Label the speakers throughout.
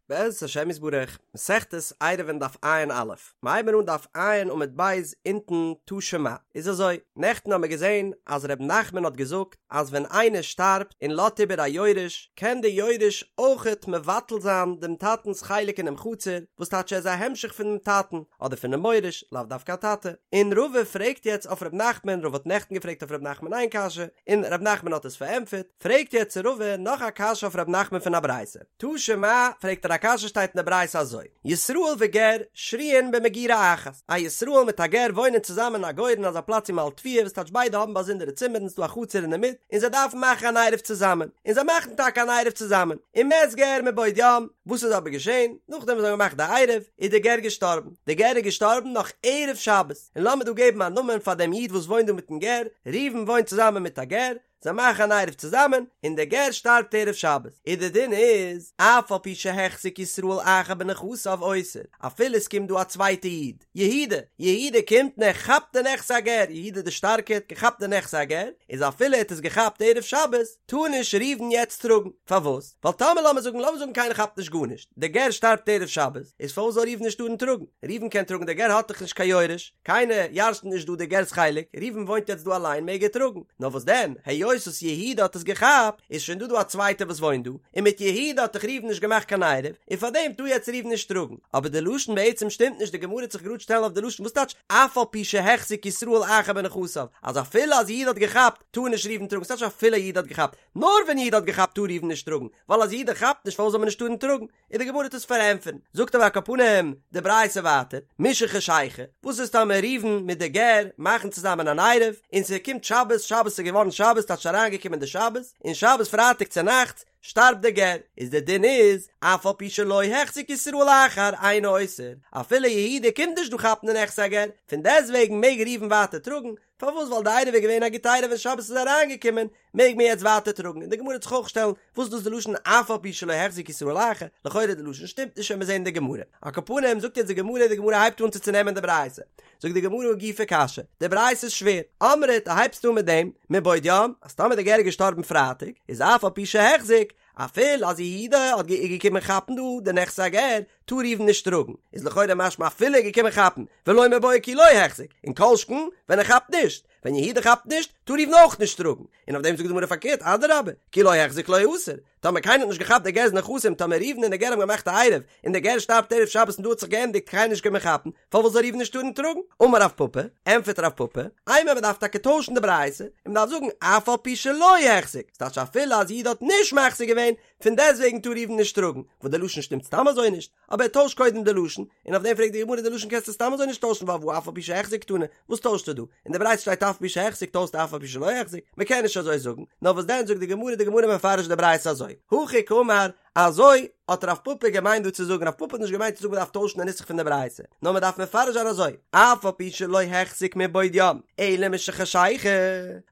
Speaker 1: בעזרת השם יתברך, מסכת עירובין דף ע"א, מ'הייבן אן דף ע' עמוד ב' אונטן תא שמע, איז אזוי, נעכטן האמיר געזען אז ר' נחמן האט געזאגט אז ווען איינער שטארבט און לאזט איבער א יורש, קען די יורש אויכעט מבטל זיין דעם טאטנ'ס חלק אינעם חצר, וואס טייטש ער איז א המשך פונעם טאטן, אדער פונעם מוריש, לאו דווקא א טאטע. און רבא פרעגט יעצט אויף ר' נחמן, רבא האט נעכטן געפרעגט אויף ר' נחמן איין קשיא, און ר' נחמן האט עס פארענטפערט, פרעגט יעצט רבא נאך א קשיא אויף ר' נחמן פון א ברייתא. תא שמע, פרעגט ער א קשיא שטייט אין די ברייתא אזוי, ישראל וגר שרויין במגורה אחת, א ישראל מיט א גר וואוינען צוזאמען אין א גורן אזא פלאץ ווי מ'האלט תבואה וואס טייטש ביידע האבן באזונדערע צימערן ס'דא א חצר אינדערמיט און זיי דארפן מאכן אן עירוב צוזאמען און זיי מאכן טאקע אן עירוב צוזאמען ומת גר מבעוד יום, וואס איז אבער געשען? נאכדעם וואס זיי האבן געמאכט די עירוב איז די גר געשטארבן, די גר איז געשטארבן נאך ערב שבת, און לאמיר דא געבן א נאמען פאר דעם איד וואס וואוינט דא מיטן גר, ראובן וואוינט צוזאמען מיט א גר, זיי מאכן אן עירוב צוזאמען, און דער גר שטארבט ערב שבת, און דער דין איז, אף על פי שהחזיק ישראל אחר בנכסיו אוסר, אפילו עס קומט דא א צווייטע איד, יהודה, יהודה קומט און ער כאפט די נכסי הגר, יהודה דער שטארקער האט געכאפט די נכסי הגר, איז אפילו ער האט עס געכאפט ערב שבת, טאר נישט ראובן יעצט טראגן, פארוואס? ווייל טאמער לאמיר זאגן, לאמיר זאגן קיינער כאפט נישט גארנישט, דער גר שטארבט ערב שבת, איז פארוואס זאל ראובן נישט טארן טראגן? ראובן קען טראגן, דער גר האט דאך נישט קיין יורש, קיינער ירש'נט נישט דא די גר'ס חלק, ראובן וואוינט יעצט דא אליין מעג ער טראגן, נאר וואס דען, היות וואס יהודה האט עס געכאפט, איז שוין דא דא א צווייטער וואס וואוינט דא, און מיט יהודה האט דאך ראובן נישט געמאכט קיין עירוב, און פארדעם טאר יעצט ראובן נישט טראגן. אבער די לשון בעצם שטימט נישט, די גמרא וועט זיך גראד שטעלן אויף די לשון, וואס טייטש אף על פי שהחזיק ישראל אחר בנכסיו, אז אפילו אז יהודה האט געכאפט, טאר נישט ראובן טראגן, ס'טייטש אפילו יהודה האט געכאפט, נאר ווען יהודה האט געכאפט טאר ראובן נישט טראגן, ווייל אז יהודה כאפט נישט פארוואס זאל מען נישט טארן טראגן? און די גמרא וועט עס פארענטפערן, זאגט אבער על כל פנים די ברייתא ווייטער, משחשיכה, וואס איז טאמער ראובן מיט די גר מאכן צוזאמען אן עירוב, און ס'קומט שבת, שבת איז געווארן שבת, טייטש אריינגעקומען די שבת, און שבת פרייטאג צונאכטס שטארבט די גר, איז די דין איז, אף על פי שלא החזיק ישראל אחר אינו אוסר, אפילו יהודה קומט נישט דא כאפן די נכסי הגר, פון דעסטוועגן מעג ראובן ווייטער טראגן, פארוואס ווייל די עירוב איז געווען א גוטע עירוב ווען שבת איז אריינגעקומען מעג מען יעצט ווייטער טראגן און די גמרא וועט זיך אויך שטעלן וואס איז דאס די לשון אף על פי שלא החזיק ישראל אחר לכאורה די לשון שטימט נישט וועלן מיר זעהן אין די גמרא על כל פנים זאגט יעצט די גמרא די גמרא הייבט אן צו צונעמען די ברייתא זאגט די גמרא הא גופא קשיא די ברייתא איז שווער אמרת דו הייבסט אן מיט דעם מבעוד יום אז טאמער די גר איז געשטארבן פרייטאג איז אף על פי שהחזיק אפילו אז יהודה האט געקומען כאפן דא די נכסי הגר טאר ראובן נישט טראגן, איז לכאורה משמע אפילו ער איז געקומען כאפן, ולא מיבעיא כי לא החזיק, און כל שכן ווען ער כאפט נישט, ווען יהודה כאפט נישט, טאר ראובן אויך נישט טראגן, און אויף דעם זאגט די גמרא פארקערט, אדרבה, כי לא החזיק לא אסר, טאמער קיינער האט נישט געכאפט די גר'ס נכסים, טאמער ראובן און די גר האבן געמאכט א עירוב, און די גר שטארבט ערב שבת און דא האט זיך געענדיגט קיינער נישט געקומען כאפן, פארוואס זאל ראובן נישט טארן טראגן? אמר רב פפא, ענטפערט רב פפא, אימא מען דארף טאקע טוישן די ברייתא, און מען דארף זאגן אף על פי שלא החזיק, ס'טייטש אפילו אז יהודה האט נישט מחזיק געווען, פון דעסטוועגן טאר ראובן נישט טראגן, וואס די לשון שטימט סתם אזוי נישט, אבער ער טוישט קודם די לשון, און אויף דעם פרעגט די גמרא די לשון קענסטו סתם אזוי נישט טוישן ווייל והא אף על פי שהחזיק קתני, וואס טוישסטו דא? אין די ברייתא שטייט אף על פי שהחזיק טוישסטו אף על פי שלא החזיק, מען קען נישט אזוי זאגן, נאר וואס דען זאגט די גמרא די גמרא מפרש די ברייתא אזוי, הכי קאמר, אזוי האט רב פפא געמיינט דא צו זאגן, רב פפא האט נישט געמיינט צו זאגן מען דארף טוישן די נוסח פון די ברייתא, נאר מען דארף מפרש זיין אזוי, אף על פי שלא החזיק מבעוד יום, אלא משחשיכה,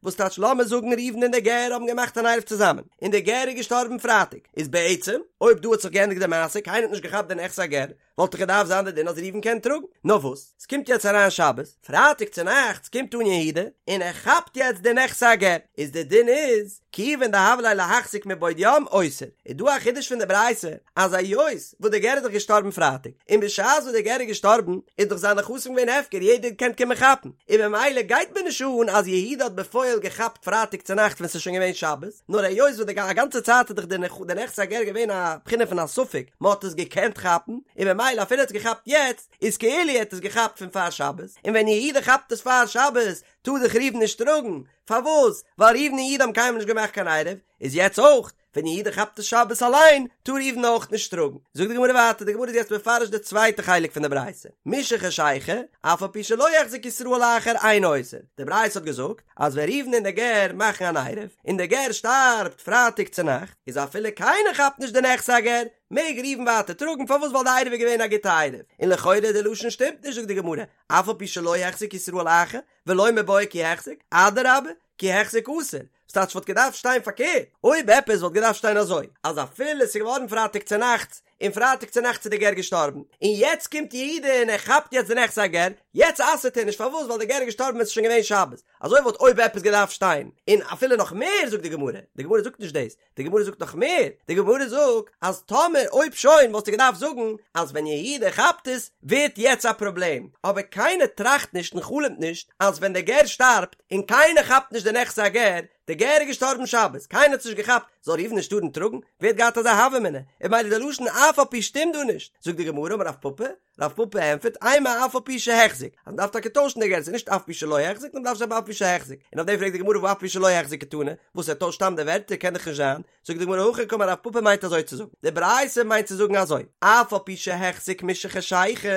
Speaker 1: וואס טייטש לאמיר זאגן ראובן און דער גר האבן געמאכט אן עירוב צוזאמען, און דער גר איז געשטארבן פרייטאג, איז בעצם, אויב דא האט זיך געענדיגט די מעשה, קיינער האט נישט געכאפט די נכסי הגר, וואלט דאך געדארפט זיין די דין אז ראובן קען טראגן, נאר וואס, ס'קומט יעצט אריין שבת, פרייטאג צונאכטס קומט אן יהודה, און ער כאפט יעצט די נכסי הגר, איז די דין איז, כיוון דהוה ליה להחזיק מבעוד יום אוסר, איז דא א חידוש פון די ברייתא, אז היות וואס די גר איז דאך געשטארבן פרייטאג, און בשעת וואס די גר איז געשטארבן איז דאך זיין נכסים געווען הפקר יעדער קען קומען כאפן, און ממילא גייט מיר נישט אן אז יהודה האט בפועל געכאפט פרייטאג צונאכט ווען ס'איז שוין געווען שבת, נאר היות וואס די א גאנצע צייט איז דאך די נכסי הגר געווען א בחינה פון א ספק, מען האט עס געקענט כאפן, און ממילא אפילו ער האט עס געכאפט יעצט, איז כאילו ער האט עס געכאפט פון פאר שבת, און ווען יהודה כאפט עס פאר שבת, טאר דאך ראובן נישט טראגן, פארוואס? ווייל ראובן און יהודה האבן קיינמאל נישט געמאכט קיין עירוב, איז יעצט אויך, ווען יהודה כאפט עס שבת אליין, טאר ראובן אויך נישט טראגן. זאגט די גמרא ווייטער, די גמרא איז יעצט מפרש די צווייטע חלק פון די ברייתא, משחשיכה, אף על פי שלא החזיק ישראל אחר אינו אוסר, די ברייתא האט געזאגט אז ווען ראובן און די גר מאכן אן עירוב, און די גר שטארבט פרייטאג צונאכט, איז אפילו קיינער כאפט נישט די נכסי הגר, מעג ראובן ווייטער טראגן, פארוואס ווייל די עירוב איז געווען א גוטע עירוב, און לכאורה די לשון שטימט נישט זאגט די גמרא, אף על פי שלא החזיק ישראל אחר, ולא מיבעיא כי החזיק, אדרבה, כי החזיק אסור, ס'טייטש וואלט געדארפט שטיין פארקערט, אויב עפעס וואלט געדארפט שטיין אזוי, אז אפילו ס'איז געווארן פרייטאג צונאכטס, און פרייטאג צונאכטס איז די גר געשטארבן, און יעצט קומט יהודה און ער כאפט יעצט די נכסי הגר, יעצט אסר'ט ער נישט פארוואס ווייל דער גר איז געשטארבן ווען ס'איז שוין געווען שבת, אזוי וואלט אויב עפעס געדארפט שטיין, און אפילו נאך מער זאגט די גמרא, די גמרא זאגט נישט דאס, די גמרא זאגט נאך מער, די גמרא זאגט אז טאמער אויב שוין וואלסטו געדארפט זאגן אז ווען יהודה כאפט עס ווערט יעצט א פראבלעם, אבער קיינער טראכט נישט און חלומ'ט נישט אז ווען דער גר שטארבט און קיינער כאפט נישט די נכסי הגר, דער גר איז געשטארבן שבת, קיינער האט עס נישט געכאפט, זאל ראובן נישט טארן טראגן? ווער האט געהאט אזא הוה אמינא? און ממילא די לשון אף על פי שטימט דא נישט, זאגט די גמרא אמר רב פפא, רב פפא ענטפערט, אימא אף על פי שהחזיק, אז מ'דארף טאקע טוישן די גירסא, נישט אף פי שלא החזיק, נאר מ'דארף שרייבן אף פי שהחזיק, און אויף דעם פרעגט די גמרא והא אף פי שלא החזיק קתני, וואס ער טוישט סתם די ווערטער קען דאך נישט זיין, זאגט די גמרא הכי קאמר רב פפא מיינט אזוי צו זאגן, די ברייתא מיינט צו זאגן אזוי, אף על פי שהחזיק משחשיכה,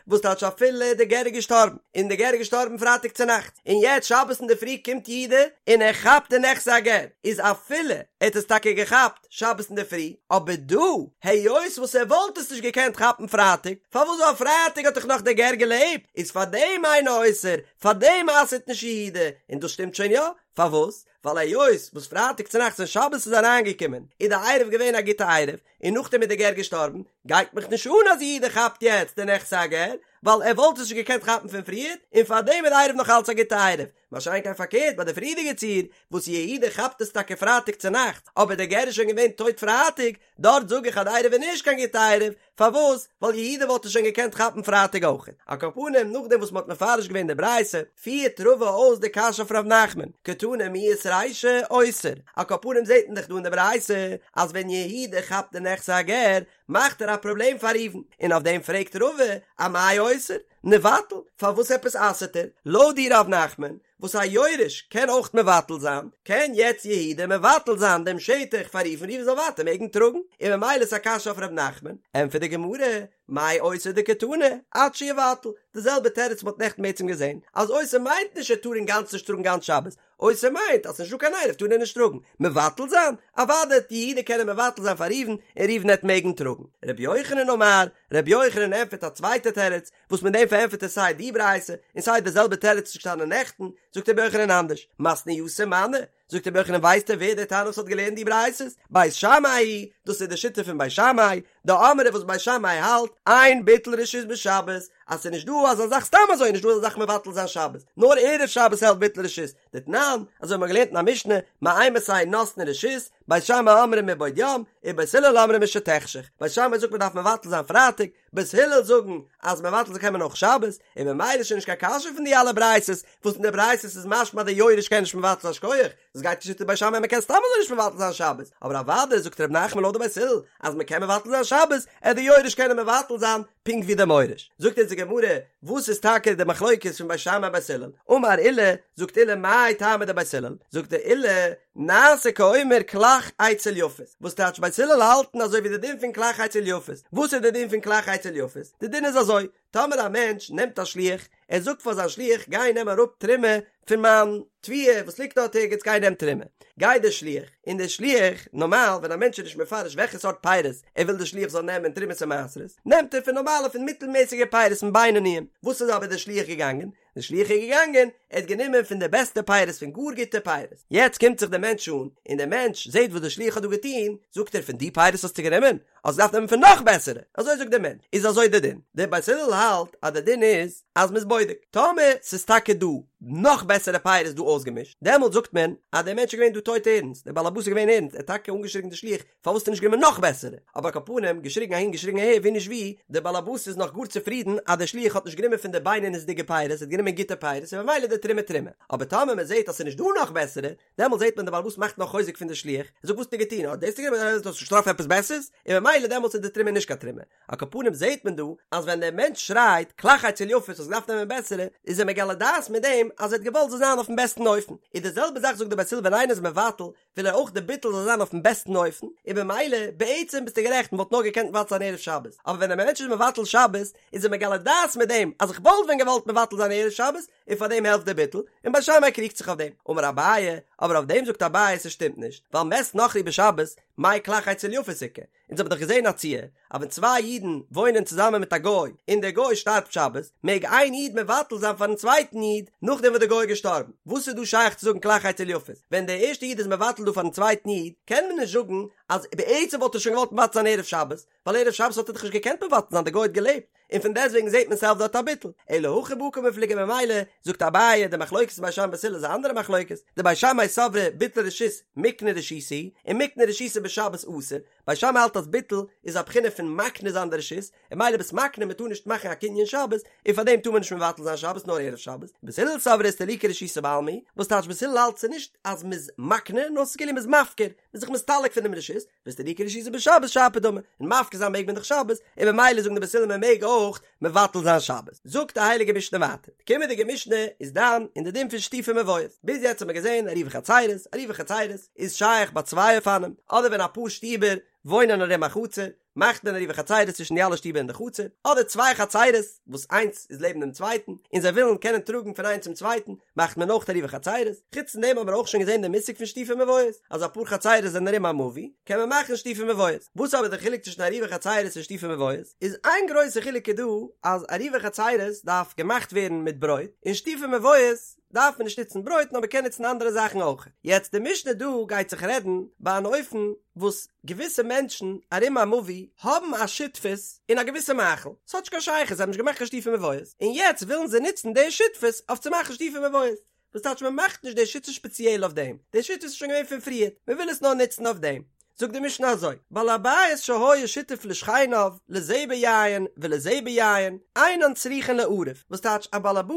Speaker 1: וואס טייטש אפילו די גר איז געשטארבן, און די גר איז געשטארבן פרייטאג צונאכטס, און יעצט שבת אינדערפרי קומט יהודה און ער כאפט די נכסי הגר, איז אפילו ער האט עס טאקע געכאפט שבת אינדערפרי, אבער דא, היות וואס ער וואלט עס נישט געקענט כאפן פרייטאג, פארוואס ווייל פרייטאג האט דאך נאך דער גר געלעבט, איז פארדעם אינו אוסר, פארדעם אסר'ט נישט יהודה, און דאס שטימט שוין יא, פארוואס? ווייל היות וואס פרייטאג צונאכטס ווען שבת איז אריינגעקומען איז די עירוב געווען א גוטע עירוב, און נאכדעם איז די גר געשטארבן, גייט מיך נישט אן אז יהודה כאפט יעצט די נכסי הגר, ווייל ער וואלט עס נישט געקענט כאפן פון פריער, און פארדעם איז די עירוב נאך אלץ א גוטע עירוב. מה שאין כן פארקערט ביי די פריערדיגע ציור, וואס יהודה כאפט עס טאקע פרייטאג צונאכטס, אבער די גר איז שוין געווען טויט פרייטאג, דארט זאג איך אז די עירוב איז נישט קיין גוטע עירוב, פארוואס? ווייל יהודה וואלט עס שוין געקענט כאפן פרייטאג אויך. על כל פנים, נאכדעם וואס מ'האט מפרש געווען די ברייתא, פירט רבא אויס די קשיא אויף ר' נחמן, קתני מיהת רישא אוסר, על כל פנים זעט מען דאך דא אין די ברייתא אז ווען יהודה כאפט די נכסי הגר, מאכט ער א פראבלעם פאר ראובן, און אויף דעם פרעגט רבא, אמאי אוסר? ניבטל, פארוואס עפעס אסר'ט ער? לויט דיר ר' נחמן, וואס א יורש קען אויך מבטל זיין, קען יעצט יהודה מבטל זיין דעם שטח פאר ראובן ראובן זאל ווייטער מעגן טראגן, און ממילא איז א קשיא אויף ר' נחמן, ענטפערט די גמרא, מאי אוסר דקתני, עד שיבטל, די זעלבע תירוץ מ'האט נעכטן בעצם געזען, אז אוסר מיינט נישט ער טאר אינגאנצן נישט טראגן גאנץ שבת, אוסר מיינט אז ס'נישט דא קיין עירוב טאר ער נישט טראגן, מבטל זיין? אוודאי וועט יהודה קענען מבטל זיין פאר ראובן און ראובן העט מעגן טראגן. רבי יוחנן אמר, רבי יוחנן ענטפערט א צווייטע תירוץ, וואס מיט דעם פארענטפערט ער סיי די ברייתא און סיי די זעלבע תירוץ וואס איז געשטאנען נעכטן, זאגט רבי יוחנן אנדערש, מתניתין מני, זאגט רבי יוחנן ווייסטו ווער דער תנא וואס האט געלערנט די ברייתות? בית שמאי היא, דאס איז די שיטה פון בית שמאי, דאמרי וואס בית שמאי האלט, אין ביטול רשות בשבת, אז ס'איז נישט דא אזא זאך סתם אזוי נישט דא אזא זאך מבטל זיין שבת, נאר ערב שבת העלפט ביטול רשות, דתנן, אזוי האט מען געלערנט אין א משנה, מאימתי נותנין רשות, בית שמאי אומרים מבעוד יום, ובית הלל אומרים משתחשך, בית שמאי זאגט מען דארף מבטל זיין פרייטאג, בית הלל זאגן אז מבטל זיין קען מען אויך שבת, און ממילא איז שוין נישט קיין קשיא פון די אלע ברייתות, וואס אין די ברייתות איז משמע אז די יורש קען נישט מבטל זיין שכוח, דאס גייט כשיטת בית שמאי מען קען סתם אזוי נישט מבטל זיין שבת, אבער אוודאי זאגט ר' נחמן לויט די בית הלל אז מען קען מבטל זיין שבת, עט די יורש קענען מבטל זיין פונקט ווי די מוריש. זאגט אונז די גמרא, וואס איז טאקע די מחלוקת פון בית שמאי בית הלל? אמר עולא, זאגט עולא מאי טעמא דבית הלל? זאגט עולא, נעשה כאומר כלך אצל יפות, וואס טייטש בית הלל האלטן אזוי ווי די דין פון כלך אצל יפות, וואס איז די דין פון כלך אצל יפות? די דין איז אזוי, טאמער א מענטש נעמט א שליח, ער זאגט פאר זיין שליח גיי נעם אראפ תרומה פון מיין תבואה וואס ליגט דארט ערגעץ גיי נעם תרומה, גייט דער שליח, און דער שליח, נארמאל ווען א מענטש איז נישט מפרש וועלכע סארט פירות ער וויל דער שליח זאל נעמען תרומות און מעשרות, נעמט ער פון נארמאלע פון מיטלמעסיגע פירות פון בינוניים, וואס איז אבער דער שליח געגאנגען? דער שליח איז געגאנגען, ער האט גענומען פון די בעסטע פירות פון גאר גוטע פירות, יעצט קומט זיך דער מענטש אן, און דער מענטש זעט וואס דער שליח האט דא געטון, זאגט ער פון די פירות האסטו גענומען? האסט געדארפט נעמען פון נאך בעסערע, אזוי זאגט דער מענטש, איז אזוי דער דין, דער בית הלל האלט אז דער דין איז אז מ'איז בודק, טאמער ס'איז טאקע דא נאך בעסערע פירות דא אויסגעמישט, דעמאלט זאגט מען אז דער מענטש איז געווען דא טויט ערנסט, דער בעל הבית איז געווען ערנסט, ער האט טאקע אנגעשריגן די שליח, פארוואס האסטו נישט גענומען נאך בעסערע? אבער על כל פנים, געשריגן אהין געשריגן אהער, ווי נישט ווי, דער בעל הבית איז נאך גאר צופרידן אז דער שליח האט נישט גענומען פון די בינונית'דיגע פירות, ער האט גענומען גוטע פירות, און ממילא די תרומה תרומה. אבער טאמער מען זעט אז ס'איז נישט דא נאך בעסערע, דעמאלט זעט מען דער בעל הבית מאכט נאך חוזק פון די שליח, ער זאגט וואס האסטו געטון, האט דאס גענומען, האסט נישט געטראפן עפעס בעסערס? און ממילא דעמאלטס איז די תרומה נישט קיין תרומה. על כל פנים זעט מען דא אז ווען דער מענטש שרייט כלך אצל יפות האסט געדארפט נעמען בעסערע, איז ער מגלה דעת מיט דעם אז ער האט געוואלט זאל זיין אויפן בעסטן אופן. איז די זעלבע זאך זאגט דער בית הלל ווען איינער איז מבטל וויל ער אויך די ביטול זאל זיין אויפן בעסטן אופן, און במילא, בעצם ביסטו גערעכט, מ'וואלט נאר געקענט מבטל זיין ערב שבת, אבער ווען א מענטש איז מבטל שבת, איז ער מגלה דעת מיט דעם אז איך וואלט ווען געוואלט מבטל זיין ערב שבת, און פאר דעם העלפט דער ביטול, און בית שמאי קריגט זיך אויף דעם. אמר אביי, אבער אויף דעם זאגט אביי ס'שטימט נישט, ווייל מת נכרי בשבת, מאי כלך אצל יפות איכא, אונז האבן דאך געזען א ציור אז ווען צוויי אידן וואוינען צוזאמען מיט א גוי און דער גוי שטארבט שבת, מעג איין איד מבטל זיין פארן צווייטן איד נאכדעם וואס דער גוי איז געשטארבן. וואס איז דא שייך צו זאגן כלך אצל יפות? ווען דער ערשטער איד איז מבטל דא פארן צווייטן איד, קען מען נישט זאגן אז בעצם וואלט ער שוין געוואלט מבטל זיין ערב שבת, ווייל ערב שבת האט ער דאך נישט געקענט מבטל זיין די גוי האט געלעבט, און פון דעסטוועגן זעט מען ס'העלפט דארט א ביטול, אלא הכא בהא קמיפלגי ממילא זאגט אביי די מחלוקת בית שמאי בית הלל איז א אנדערע מחלוקת, דבית שמאי סברי ביטול רשות מיקנא רשותא הוא, און מיקנא רשותא בשבת אסור, בית שמאי האלט אז ביטול איז א בחינה פון מקנה זיין די רשות, און ממילא ביסט מקנה מען טאר נישט מאכן א קנין שבת, און פאר דעם טאר מען נישט מבטל זיין שבת נאר ערב שבת, בית הלל סברי אסתלוקי רשותא בעלמא הוא, וואס טייטש בית הלל האלט ס'איז נישט אז מ'איז מקנה נאר ס'איז כאילו מ'איז מפקיר, מ'איז זיך מסתלק פונעם רשות, ואיסתלוקי רשותא בשבת שפיר דמי, און מפקיר זיין מעג מען דאך שבת, און ממילא זאגן די בית הלל מען מעג אויך מבטל זיין שבת. זאגט די הייליגע משנה ווייטער, די קומענדיגע משנה איז דן אין די דין פון שיתופי מבואות, ביז יעצט האט מען געזען עירובי חצירות, עירובי חצירות איז שייך ביי צוויי אופנים, אדער ווען אפאר שטיבער וואוינען ארום א חצר, מאכט מען עירובי חצירות צווישן די אלע שטיבער אין די חצר, אדער צוויי חצירות וואס איינס איז לעבן דעם צווייטן און זיי ווילן קענען טראגן פון איינס צום צווייטן, מאכט מען אויך עירובי חצירות, חוץ פון דעם האבן מיר אויך שוין געזען די מושג פון שיתופי מבואות, אז אפאר חצירות זענען ארום א מבוי, קען מען מאכן שיתופי מבואות. וואס אבער די חילוק צווישן עירובי חצירות און שיתופי מבואות? איז איין גרויסע חילוק איז דא אז עירובי חצירות דארף געמאכט ווערן מיט ברויט, און שיתופי מבואות דארף מען נישט נוצן ברויט נאר מען קען נוצן אנדערע זאכן אויך. יעצט די משנה דא גייט זיך רעדן ביי אן אופן וואס געוויסע מענטשן ארום א מבוי האבן א שותפות אין א געוויסע מאכל, ס'האט נישט קיין שייכות, זיי האבן נישט געמאכט קיין שיתופי מבואות, און יעצט ווילן זיי נוצן די שותפות אויף צו מאכן שיתופי מבואות. וואס טייטש מען מאכט נישט די שותפות שפעציעל אויף דעם, די שותפות איז שוין געווען פון פריער, מען וויל עס נאר נוצן אויף דעם. זאגט די משנה אזוי, בעל הבית שהיה שותף לשכניו לזה ביין ולזה ביין, אינן צריכין לערב, וואס טייטש א בעל הבית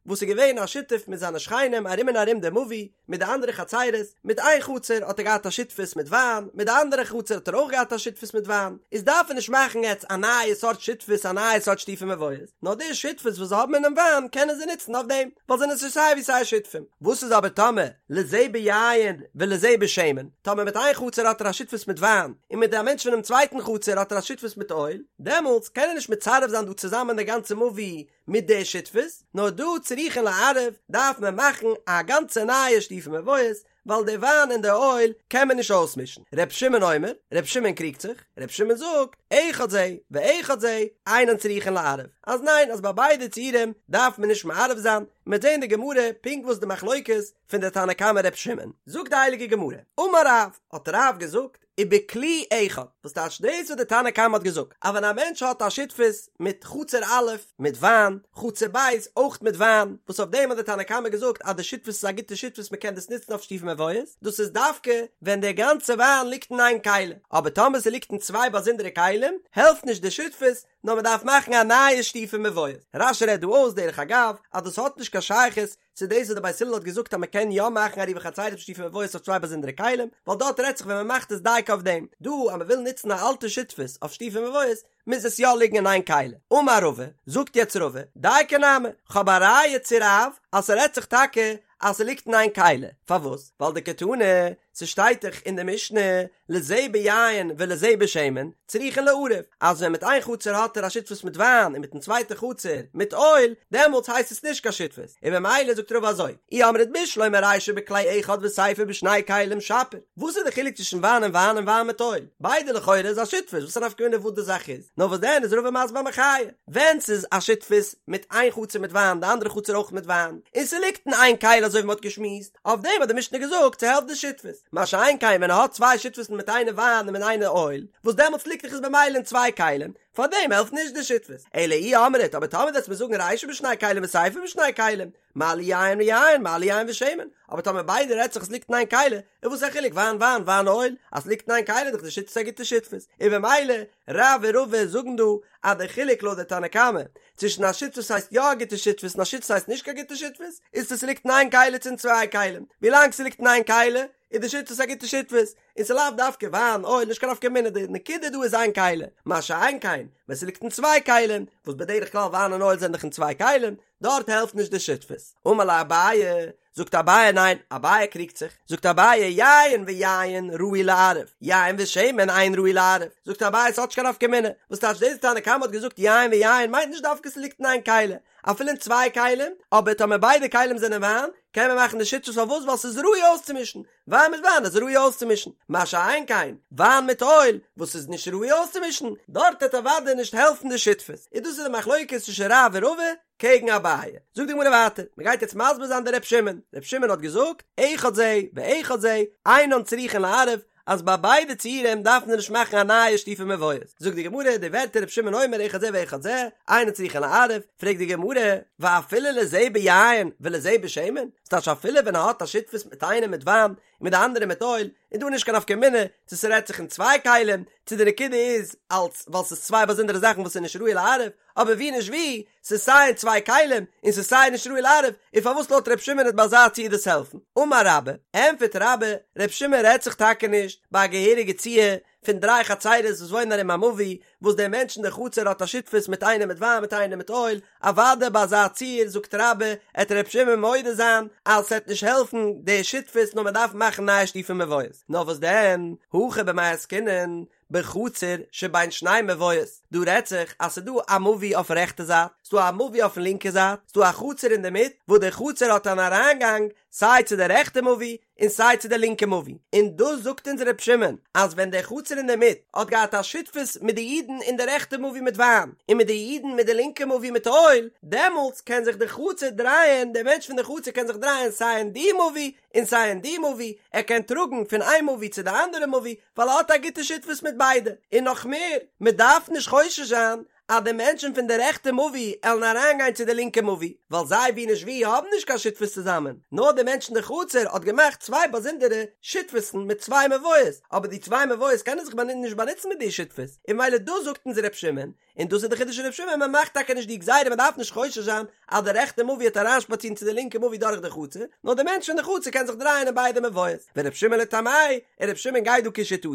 Speaker 1: וואס איז געווען א שותף מיט זיינע שכנים ארום און ארום די מבוי, מיט די אנדערע חצירות, מיט איין חצר האט ער געהאט א שותפות מיט וויין, מיט די אנדערע חצר האט ער אויך געהאט א שותפות מיט וויין, איז דארף ער נישט מאכן יעצט א נייע סארט שותפות א נייע סארט שיתופי מבואות, נאר די שותפות וואס זיי האבן אינעם וויין קענען זיי נוצן אויף דעם, ווייל זיי זענען שוין סיי ווי סיי שותפים. וואס איז אבער טאמער לזה ביין ולזה בשמן, טאמער מיט איין חצר האט ער א שותפות מיט וויין, און מיט א מענטש פונעם צווייטן חצר האט ער א שותפות מיט אויל, דעמאלטס קען ער נישט מצרף זיין דא צוזאמען די גאנצע מבוי מיט די שותפות, נאר דא צריכין לערב דארף מען מאכן א גאנצע נייע שיתופי מבואות, ווייל די וויין און די אויל קען מען נישט אויסמישן. ר' שמעון אומר, ר' שמעון קריגט זיך, ר' שמעון זאגט, אחד זה ואחד זה אינן צריכין לערב, אז ניין אז ביי ביידע ציורים דארף מען נישט מערב זיין, מ'וועט זען אין די גמרא פונקט וואס די מחלוקת פון די תנא קמא ר' שמעון. זאגט די הייליגע גמרא, אמר רב, האט רב געזאגט, ובכלי אחד, וואס טייטש דאס וואס די תנא קמא האט געזאגט, אז ווען א מענטש האט א שותפות מיט חצר א' מיט וויין, חצר ב' אויך מיט וויין, וואס אויף דעם האט די תנא קמא געזאגט אז די שותפות איז א גוטע שותפות מען קען דאס נוצן אויף שיתופי מבואות, דאס איז דווקא ווען דער גאנצע וויין ליגט אין איין כלי, אבער טאמער ס'ליגט אין צוויי באזונדערע כלים, העלפט נישט די שותפות, נאר מען דארף מאכן א נייע שיתופי מבואות. רש"י רעדט דא אויס דרך אגב אז דאס האט נישט קיין שייכות צו דאס וואס די בית הלל האט געזאגט אז מען קען יא מאכן עירובי חצירות שיתופי מבואות אויף צוויי באזונדערע כלים, ווייל דארט רעדט זיך ווען מען מאכט עס דייקא אויף דעם, דא אז מען וויל נוצן א אלטע שותפות אויף שיתופי מבואות מוז עס יא ליגן אין איין כלי. אמר רבא, זאגט יעצט רבא, דייקא נמי, כ'האב א ראיה צו רב אז ס'רעדט זיך טאקע אז ס'ליגט אין איין כלי, פארוואס? ווייל דקתני, ס'שטייט דאך אין די משנה, לזה ביין ולזה בשמן, צריכין לערב, אז ווען מיט איין חצר האט ער א שותפות מיט וויין און מיטן צווייטע חצר מיט אויל, דעמאלטס הייסט עס נישט קיין שותפות, און ממילא זאגט רבא אזוי, אי אמרת בשלמא רישא בכלי אחד וסיפא בשני כלים שפיר, וואס איז די חילוק צווישן וויין און וויין און וויין מיט אויל? ביידע לכאורה איז א שותפות, וואס איז א נפקא מינה וואס די זאך איז? נאר וואס דען איז רבא מסביר א מחיה, ווען ס'איז א שותפות מיט איין חצר מיט וויין די אנדערע חצר אויך מיט וויין, און ס'ליגט אין איין כלי אזוי ווי מ'האט געשמועסט, אויף דעם האט די משנה געזאגט ס'העלפט די שותפות, מה שאין כן ווען ער האט צוויי שותפות'ן מיט איינע וויין און מיט איינע אויל, וואס דעמאלטס ליגט דאך עס במילא אין צוויי כלים, פאר דעם העלפט נישט די שותפות. אלא אי אמרת, אבער טאמער וועסט מיר זאגן רישא בשני כלים וסיפא בשני כלים, מה לי יין ויין, מה לי יין ושמן, אבער טאמער ביידע רעדט זיך עס ליגט אין איין כלי, איז וואס א חילוק וויין וויין וויין אויל, אז ס'ליגט אין איין כלי איז דאך די שותפות א גוטע שותפות, און במילא רב און רבא זאגן דא אז די חילוק לויט די תנא קמא צווישן א שותפות הייסט יא א גוטע שותפות און א שותפות הייסט נישט קיין גוטע שותפות, איז צו ס'ליגט אין איין כלי צו אין צוויי כלים, ווילאנג ס'ליגט אין איין כלי איז די שותפות א גוטע שותפות, און ס'לאו דווקא וויין, אויל, נישט קיין נפקא מינה, די נקודה דא איז איין כלי, מה שאין כן ווען ס'ליגט אין צוויי כלים, וואס בדרך כלל וויין און אויל זענען דאך אין צוויי כלים, דארט העלפט נישט די שותפות. אמר ליה אביי, זאגט אביי ניין, אביי קריגט זיך, זאגט אביי יין ויין ראוי לערב, יין ושמן אין ראוי לערב, זאגט אביי ס'האט נישט קיין נפקא מינה, וואס טייטש דאס תנא קמא האט געזאגט יין ויין מיינט נישט דווקא ס'ליגט אין איין כלי, אפילו אין צוויי כלים, אבער טאמער ביידע כלים זענען וויין, קען מען מאכן די שותפות פארוואס ווייל ס'איז ראוי אויסצומישן, וויין מיט וויין איז ראוי אויסצומישן, מה שאין כן וויין מיט אויל וואס איז נישט ראוי אויסצומישן, דארט וועט אוודאי נישט העלפן די שותפות, און דאס איז די מחלוקת צווישן רב און רבא קעגן אביי. זאגט די גמרא ווייטער, מען גייט יעצט מסביר זיין די ר' שמעון, ר' שמעון האט געזאגט, אחד זה ואחד זה, אינן צריכין לערב, אז ביי ביידע ציורים דארף מען נישט מאכן א נייע שיתופי מבואות. זאגט די גמרא די ווערטער ר' שמעון אומר אחד זה ואחד זה, אינו צריכין לערב, פרעגט די גמרא, ואפילו לזה ביין ולזה בשמן? ס'טייטש אפילו ווען ער האט א שותפות מיט איינעם מיט וויין און מיט די אנדערע מיט אויל, איז דא נישט קיין נפקא מינה צו ס'רעדט זיך אין צוויי כלים, צו די נקודה איז אלץ ווייל ס'איז צוויי באזונדערע זאכן וואס איז נישט ראוי לערב, אבער ווי נישט ווי, ס'איז סיי אין צוויי כלים און ס'איז סיי נישט ראוי לערב, און פארוואס לויט ר' שמעון וועט ביי אזא ציור דאס העלפן? אמר רבה, ענטפערט רבה, ר' שמעון רעדט זיך טאקע נישט ביי א געהעריגע ציור פון דריי חצירות וואס וואוינען ארום א מבוי, וואס דער מענטש אין די חצר האט א שותפות מיט איינעם מיט וויין מיט איינעם מיט אויל, אוודאי ביי אזא ציור זאגט רבה, עט ר' שמעון מודה זיין אז ס'עט נישט העלפן די שותפות נאר מ'דארף מאכן נייע שיתופי מבואות, נאר וואס דען, הכא במאי עסקינן, בחצר שבין שני מבואות, דא רעדט זיך אז ס'דא א מבוי אויפן רעכטע זייט, ס'דא א מבוי אויפן לינקע זייט, ס'דא א חצר אינדערמיט, וואס די חצר האט אן אריינגאנג סיי צו די רעכטע מבוי און סיי צו די לינקע מבוי, און דאס זאגט אונז ר' שמעון אז ווען די חצר אינדערמיט האט געהאט א שותפות מיט די אידן אין די רעכטע מבוי מיט וויין, און מיט די אידן מיט די לינקע מבוי מיט אויל, דעמאלטס קען זיך די חצר דרייען, דער מענטש פון די חצר קען זיך דרייען סיי אין די מבוי און סיי אין די מבוי, ער קען טראגן פון איין מבוי צו די אנדערע מבוי, ווייל ער האט א גוטע שותפות מיט ביידע, און נאך מער, מען דארף נישט חושש זיין אז די מענטשן פון די רעכטע מבוי עלן אריינגיין צו די לינקע מבוי, ווייל זיי ווי נישט ווי האבן נישט קיין שותפות צוזאמען, נאר די מענטשן די חצר האט געמאכט צוויי באזונדערע שותפות'ן מיט צוויי מבואות, אבער די צוויי מבואות קענען זיך נישט באנוצן מיט די שותפות, און ממילא דאס זאגט אונז ר' שמעון, און דאס איז די חידוש פון ר' שמעון, מען מאכט טאקע נישט די גזירה מען דארף נישט חושש זיין אז די רעכטע מבוי וועט אריינשפאצירן צו די לינקע מבוי דורך די חצר, נאר די מענטש פון די חצר קען זיך דרייען אין ביידע מבואות, ור' שמעון לטעמיה, און ר' שמעון גייט דא כשיטתו,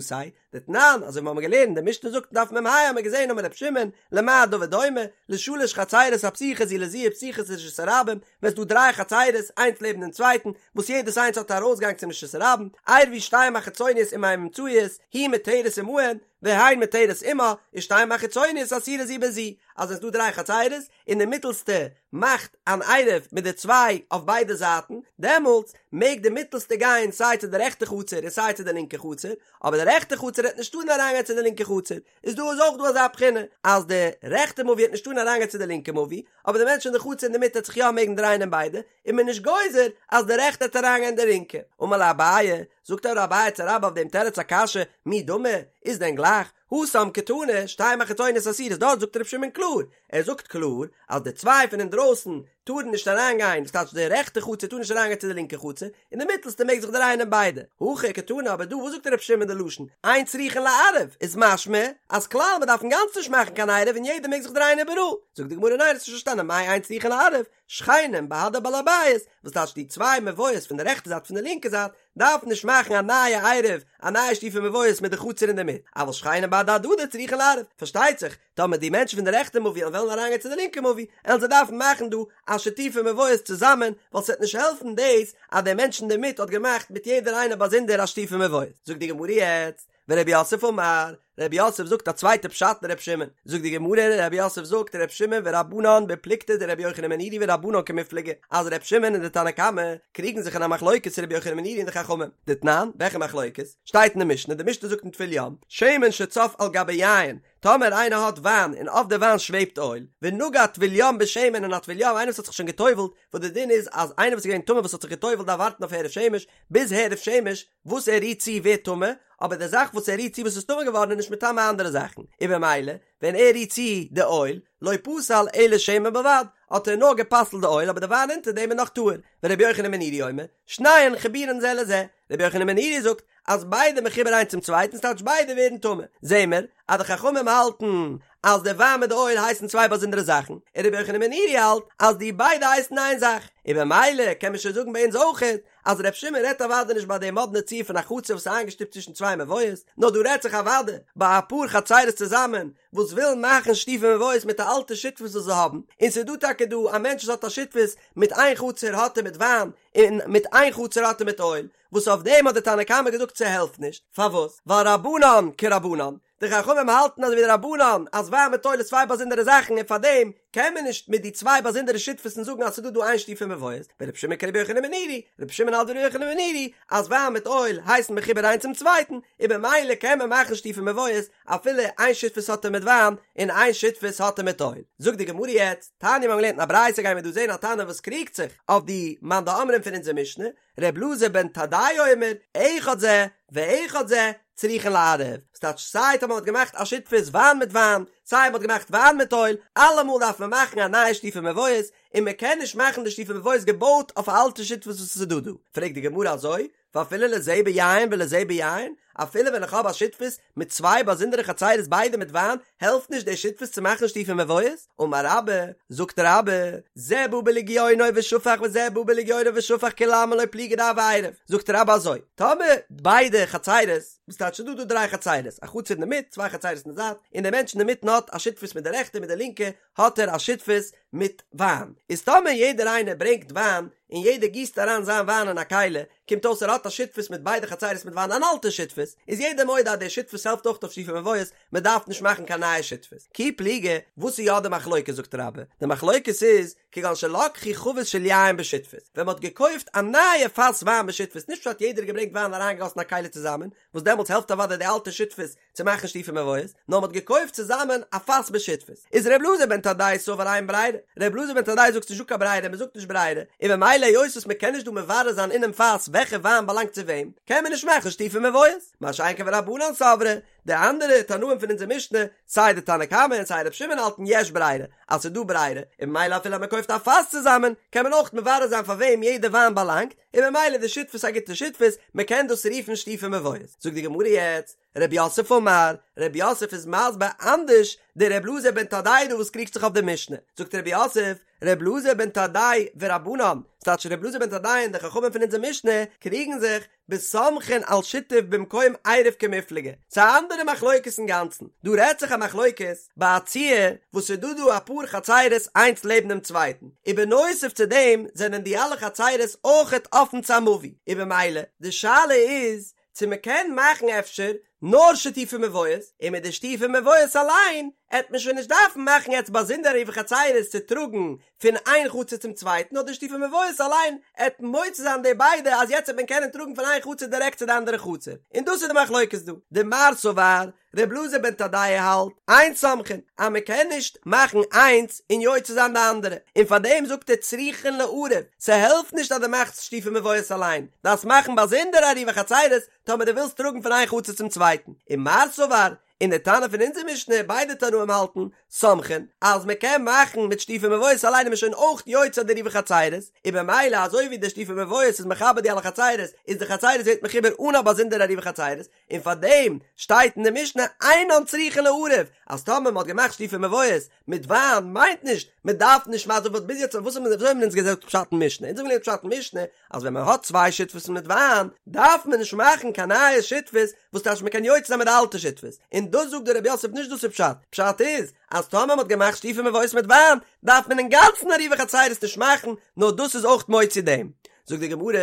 Speaker 1: דתנן, אזוי ווי מיר האבן געלערנט, די משנה זאגט אין דף מ"ה האבן מיר געזען אמר ר' שמעון, למה הדבר דומה, לשלש חצירות הפתוחות זו לזו ופתוחות לרשות הרבים, ווען ס'דא דריי חצירות איינס לעבן דעם צווייטן, וואס יעדעס איינס האט א ארויסגאנג צום רשות הרבים, עירבו שתיים החיצוניות עם האמצעיות, היא מותרת עמהן, והן מותרת עמה, ושתיים החיצוניות אסורות זו בזו, אז עס איז דא דריי חצירות, און די מיטעלסטע מאכט אן עירוב מיט די צוויי אויף ביידע זייטן, דעמאלטס מעג די מיטעלסטע גיין סיי צו די רעכטע חצר און סיי צו די לינקע חצר, אבער די רעכטע חצר העט נישט טארן אריינגיין צו די לינקע חצר, איז דא איז אויך דא אזא בחינה אז די רעכטע מבוי העט נישט טארן אריינגיין צו די לינקע מבוי, אבער די מענטש אין די חצר אינדערמיט העט זיך יא מעגן דרייען אין ביידע, איז מען נישט גוזר אז די רעכטע העט אריינגיין אין די לינקע. אמר ליה אביי, זאגט אבער אביי צו רבה אויף דעם תירוץ א קשיא, מי דמי, איז דען גלייך, התם קתני, שתיים החיצוניות אסורות, דארט זאגט ר' שמעון קלאר, ער זאגט קלאר אז די צוויי פון אינדרויסן טארן נישט אריינגיין, דאס טייטש די רעכטע חצר טאר נישט אריינגיין צו די לינקע חצר, און די מיטלסטע מעג זיך דרייען אין ביידע. הכא קתני, אבער דא וואס זאגט ר' שמעון די לשון, אין צריכין לערב, איז משמע אז כלל מען דארף אינגאנצן נישט מאכן קיין עירוב און יעדער מעג זיך דרייען איבעראל. זאגט די גמרא ניין האסט נישט פארשטאנען מאי אין צריכין לערב, שכנים בהדי בעל הבית, וואס טייטש די צוויי מבואות פון די רעכטע זייט פון די לינקע זייט דארף נישט מאכן א נייע עירוב, א נייע שיתופי מבואות מיט די חצר אינדערמיט, אבל שכנים בהדי הדדי צריכין לערב, פארשטייט זיך טאמער די מענטשן פון די רעכטע מבוי וועלן אריינגיין צו די לינקע מבוי, עלן זיי דארפן מאכן דא א שיתופי מבואות צוזאמען, ווייל ס'וועט נישט העלפן דאס אז דער מענטש אינדערמיט האט געמאכט מיט יעדער איינער באזונדער א שיתופי מבואות. זאגט די גמרא יעצט, ורב יוסף אמר, רב יוסף זאגט א צווייטע פשט אין ר' שמעון, זאגט די גמרא, רב יוסף זאגט ר' שמעון ורבנן בפלוגתא דרבי יוחנן בן נורי ורבנן קמיפלגי, אז ר' שמעון און די תנא קמא קריגן זיך אין א מחלוקת צו רבי יוחנן בן נורי און די חכמים, דתנן, וועלכע מחלוקת? שטייט אין די משנה, די משנה זאגט אין טבול יום, שמן שצף על גבי יין, טאמער איינער האט וויין און אויף די וויין שוועבט אויל, ונגע טבול יום בשמן און א טבול יום איינער וואס האט זיך שוין געטובלט, וואס די דין איז אז איינער וואס איז געווען טמא וואס האט זיך געטובלט דארף ווארטן אויף הערב שמש, ביז הערב שמש וואס ער רירט צו ווערט טמא, אבער די זאך וואס ער רירט צו וואס איז טמא געווארן איז נישט מטמא אנדערע זאכן, און במילא ווען ער רירט צו די אויל, לא פסל אלא שמן בלבד, האט ער נאר גע'פסל'ט די אויל אבער די וויין אונטער דעם איז נאך טהור, ורבי יוחנן בן נורי אומר, שניהן חיבורין זה לזה, רבי יוחנן בן נורי זאגט אז ביידע מחובר איינס צום צווייטן ס'טייטש ביידע ווערן טמא, זעהן מיר אז די חכמים האלטן אז די וויין מיט די אויל הייסן צוויי באזונדערע זאכן, און רבי יוחנן בן נורי האלט אז די ביידע הייסן איין זאך, און במילא קען מען שוין זאגן ביי אונז אויכעט אז ר' שמעון רעדט אוודאי נישט ביי די מאדנע ציור פון א חצר וואס איז איינגעשטופט צווישן צוויי מבואות, נאר דא רעדט זיך אוודאי ביי אפאר חצרות צוזאמען וואס ווילן מאכן שיתופי מבואות מיט א אלטע שותפות וואס זיי האבן, און ס'איז דא טאקע דא א מענטש וואס האט א שותפות מיט איין חצר האט ער מיט וויין און מיט איין חצר האט ער מיט אויל, וואס אויף דעם האט די תנא קמא געזאגט ס'העלפט נישט, פארוואס? ווייל רבנן כרבנן, די חכמים האלטן אזוי ווי די רבנן אז וויין מיט אויל איז צוויי באזונדערע זאכן און פארדעם קען מען נישט מיט די צוויי באזונדערע שותפות'ן זאגן אז ס'איז דא דא איין שיתופי מבואות, ורבי שמעון כרבי יוחנן בן נורי, רבי שמעון האלט ווי רבי יוחנן בן נורי אז וויין מיט אויל הייסן מחובר איינס צום צווייטן, און במילא קען מען מאכן שיתופי מבואות אפילו איין שותפות האט ער מיט וויין און איין שותפות האט ער מיט אויל. זאגט די גמרא יעצט, תניא מיר האבן געלערנט אין א ברייתא גייען מיר דא זען א תנא וואס קריגט זיך אויף די מאן דאמרים פון אונזער משנה, ר' אלעזר בן תדאי אומר, אחד זה ואחד זה, צריכין לערב, ס'טייטש סיי טאמער מ'האט געמאכט א שותפות וויין מיט וויין, סיי מ'האט געמאכט וויין מיט אויל, אלעמאל דארף מען מאכן א נייע שיתופי מבואות, און מ'קען נישט מאכן די שיתופי מבואות געבויט אויף א אלטע שותפות וואס עס איז דא דא. פרעגט די גמרא אזוי, ואפילו לזה ביין ולזה ביין, אפילו ווען איך האב א שותפות מיט צוויי באזונדערע חצירות ביידע מיט וויין, העלפט נישט די שותפות צו מאכן שיתופי מבואות? אמר רבה, זאגט רבה, זה בא בלגיונו ושפך וזה בא בלגיונו ושפך כולי עלמא לא פליגי דהוי עירוב, זאגט רבה אזוי, טאמער ביידע חצירות, וואס טייטש ס'דא דא דריי חצירות, א חצר אינדערמיט, צוויי חצירות אין די זייט, און דער מענטש אינדערמיטן האט א שותפות מיט די רעכטע מיט די לינקע, האט ער א שותפות מיט וויין, איז טאמער יעדער איינער ברענגט וויין, און יעדער גיסט אריין זיין וויין אין א כלי, קומט אויס ער האט א שותפות מיט ביידע חצירות מיט וויין אן אלטע שותפות, איז יעדער מודה אז די שותפות העלפט אויך אויף שיתופי מבואות, מען דארף נישט מאכן קיין נייע שותפות. כי פליגי, וואס איז יא די מחלוקת זאגט רבה, די מחלוקת איז, כגון שלקחו חבית של יין בשותפות, ווען מען האט געקויפט א נייע פאס וויין בשותפות, נישט פשט יעדער האט געברענגט וויין און אריינגעגאסן א כלי צוזאמען, וואס דעמאלטס העלפט אוודאי די אלטע שותפות צו מאכן שיתופי מבואות, נאר מען האט געקויפט צוזאמען א פאס בשותפות. איז ר' אלעזר בן תדאי סבר אין ברירה, ר' אלעזר בן תדאי זאגט ס'נישט דא קיין ברירה, מען זאגט נישט ברירה, און ממילא היות וואס מען קען נישט דא מברר זיין אינעם פאס וועלכע וויין באלאנגט צו וועם, קען מען נישט מאכן שיתופי מבואות. מה שאין כן ורבנן סברי, די אנדערע תנאים פון אונזער משנה, סיי די תנא קמא און סיי ר' שמעון האלטן יש ברירה, אז ס'איז דא ברירה, און ממילא אפילו אז מען קויפט א פאס צוזאמען, קען מען אויך מברר זיין פאר וועם יעדע וויין באלאנגט, און ממילא איז די שותפות א גוטע שותפות, מען קען דאס רופן שיתופי מבואות. זאגט די גמרא יעצט, רב יוסף אמר, רב יוסף איז מסביר אנדערש די ר' אלעזר בן תדאי דא וואס קריגט זיך אויף די משנה, זאגט רב יוסף, ר' אלעזר בן תדאי ורבנן, ס'טייטש ר' אלעזר בן תדאי און די חכמים פון אונזער משנה קריגן זיך, בסומכין על שיתוף במקום עירוב קמיפלגי, ס'איז א אנדערע מחלוקת אינגאנצן, דא רעדט זיך א מחלוקת ביי א ציור וואס ס'איז דא דא אפאר חצירות איינס לעבן דעם צווייטן, און בנוסף צו דעם זענען די אלע חצירות אויכעט אפן צו א מבוי, און במילא די שאלה איז צו מ'קען מאכן אפשר נאר שיתופי מבואות, און מיט די שיתופי מבואות אליין עט מען שוין נישט דארפן מאכן יעצט באזונדער עירובי חצירות צו טראגן פון איין חצר צום צווייטן נאר די שיתופי מבואות אליין עט מוציא זיין די ביידע אז יעצט עט מען קענען טראגן פון איין חצר דירעקט צו די אנדערע חצר, און דאס איז די מחלוקת דא. דמר סבר, ר' אלעזר בן תדאי האלט, אין סומכין, אז מען קען נישט מאכן איינס און יוצא זיין די אנדערע, און פאר דעם זאגט ער צריכין לערב, ס'העלפט נישט אז דו מאכסט שיתופי מבואות אליין, דארפסט מאכן באזונדער עירובי חצירות טאמער דו ווילסט טראגן פון איין חצר צום צווייטן, ומר סבר, און די תנא פון אונזער משנה, ביידע תנאים האלטן, סומכין, אז מען קען מאכן מיט שיתופי מבואות אליין איז מען שוין אויך יוצא די עירובי חצירות, און במילא אזוי ווי די שיתופי מבואות איז מחבר די אלע חצירות, איז די חצירות ווערט מחובר אן א באזונדערע עירובי חצירות, און פאר דעם שטייט אין די משנה אינן צריכין לערב, אז טאמער מען האט געמאכט שיתופי מבואות מיט וויין מיינט נישט מען דארף נישט מאכן וואס ביז יעצט וואס האבן וויאזוי האבן אונז געזאגט פשט אין משנה, אונז האבן געלערנט פשט אין משנה אז ווען מען האט צוויי שותפות'ן מיט וויין דארף מען נישט מאכן קיין נייע שותפות וואס טייטש מען קען יוצא זיין מיט די אלטע שותפות, און דאס זאגט דער רב יוסף נישט דאס איז פשט, פשט איז אז טאמער מען האט געמאכט שיתופי מבואות מיט וויין דארף מען אינגאנצן עירובי חצירות נישט מאכן נאר דאס איז אויך מוציא דעם. זאגט די גמרא,